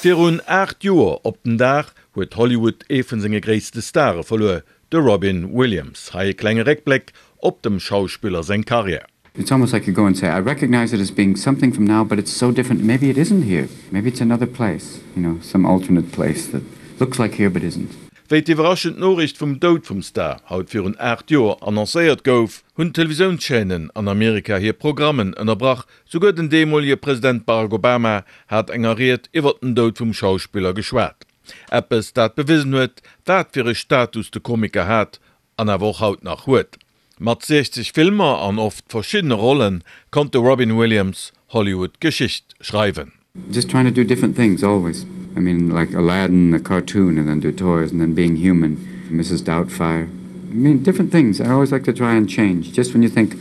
Virun 8 Joer op den Dag huet Hollywood ee vun senge gréisste Stare verluer, de Robin Williams. Hei e klenge Réckbléck op dem Schauspiller seng Karriär. It's almost like you go and say, I recognize it as being something from now, but it's so different. Maybe it isn't here. Maybe it's another place, you know, some alternate place that looks like here but isn't. Wéi d'iwwerraschend Noriicht vum Doud vum Star haut virun 8 Joer annoncéiert gouf, hunn d'Televisiounschaînen an Amerika hir Programmen ënnerbrach. Souguer den deemolege President Barack Obama hat enger Ried iwwer den Doud vum Schauspiller geschwat. Eppes, dat bewisen huet, wat fir e Status de Komiker hat an awer och haut nach huet. Mat 60 Filmer an oft verschiddene Rolle konnt de Robin Williams Hollywood Geschicht schreiwen. Just trying to do different things always. I mean like Aladdin, a cartoon and then do toys and then being human, Mrs Doubtfire. I mean different things. I always like to try and change just when you think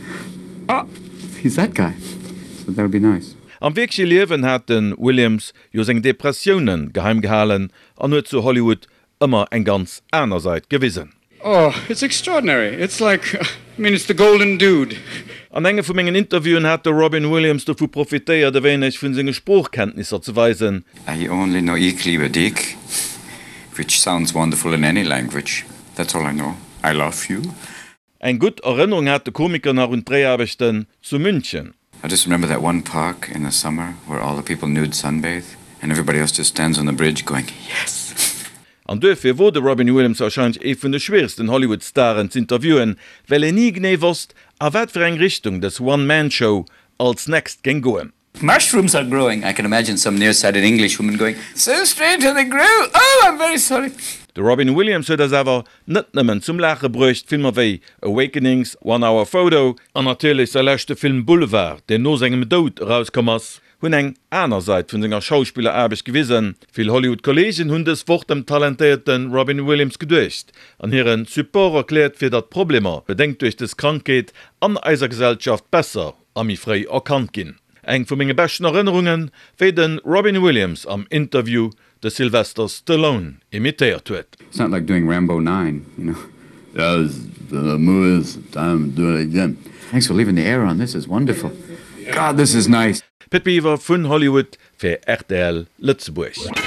oh he's that guy. So that would be nice. Am wierkleche Liewen hat de Williams jo seng Depressioune geheim gehalen an huet zu Hollywood ëmmer eng ganz aner Sait gewisen. Oh, it's extraordinary. It's like, I mean, it's the golden dude. An enge vu mengen Interviewen hat de Robin Williams dovu profitéiert, e wéineg vun senge Sproochkenntnisser ze weisen. I only know Ik liebe dich, which sounds wonderful in any language. That's all I know. I love you. Eng gutt Erënnerung hat de Komiker nach un d'Dréiaarbechten zu München. I just remember that one park in the summer where all the people nude sunbathe and everybody else just stands on the bridge going yes! An duerfir wor de Robin Williams warscheinlech ee vun de schwieregsten Hollywood-Staren z'interviewen, well een ni genee wosst, a wat fir eng Richtung dës One-Man-Show als next géing goen. Mushrooms are growing, I can imagine some nearsighted Englishwoman going, So strange how they grow, oh I'm very sorry. De Robin Williams huet eis awer net nëmmen zum Laache bruecht, Filmer wéi Awakenings, One Hour Photo, an natierlech säi leschte Film Boulevard, deen no sengem Doud erauskomm ass, hunn eng aner Sait vun senger Schauspilleraarbecht gewisen. Vill Hollywood-Kolleegen hunn dës Woch dem talentéierte Robin Williams geduecht an hire Support erkläert, fir datt d'Problemer, bedéngt duerch dës Krankheet, an eiser Gesellschaft besser a méi fréi erkannt ginn. Eng vu menge beschten Erënnerungen, wéi de Robin Williams am Interview de Sylvester Stallone imitéiert huet. It's not like doing Rambo 9, you know. Yeah, it's the movie, it's time to do it again. Thanks for leaving the air on, this is wonderful. God, this is nice. Pit Biwer vun Hollywood fir rtl Lëtzebuerg.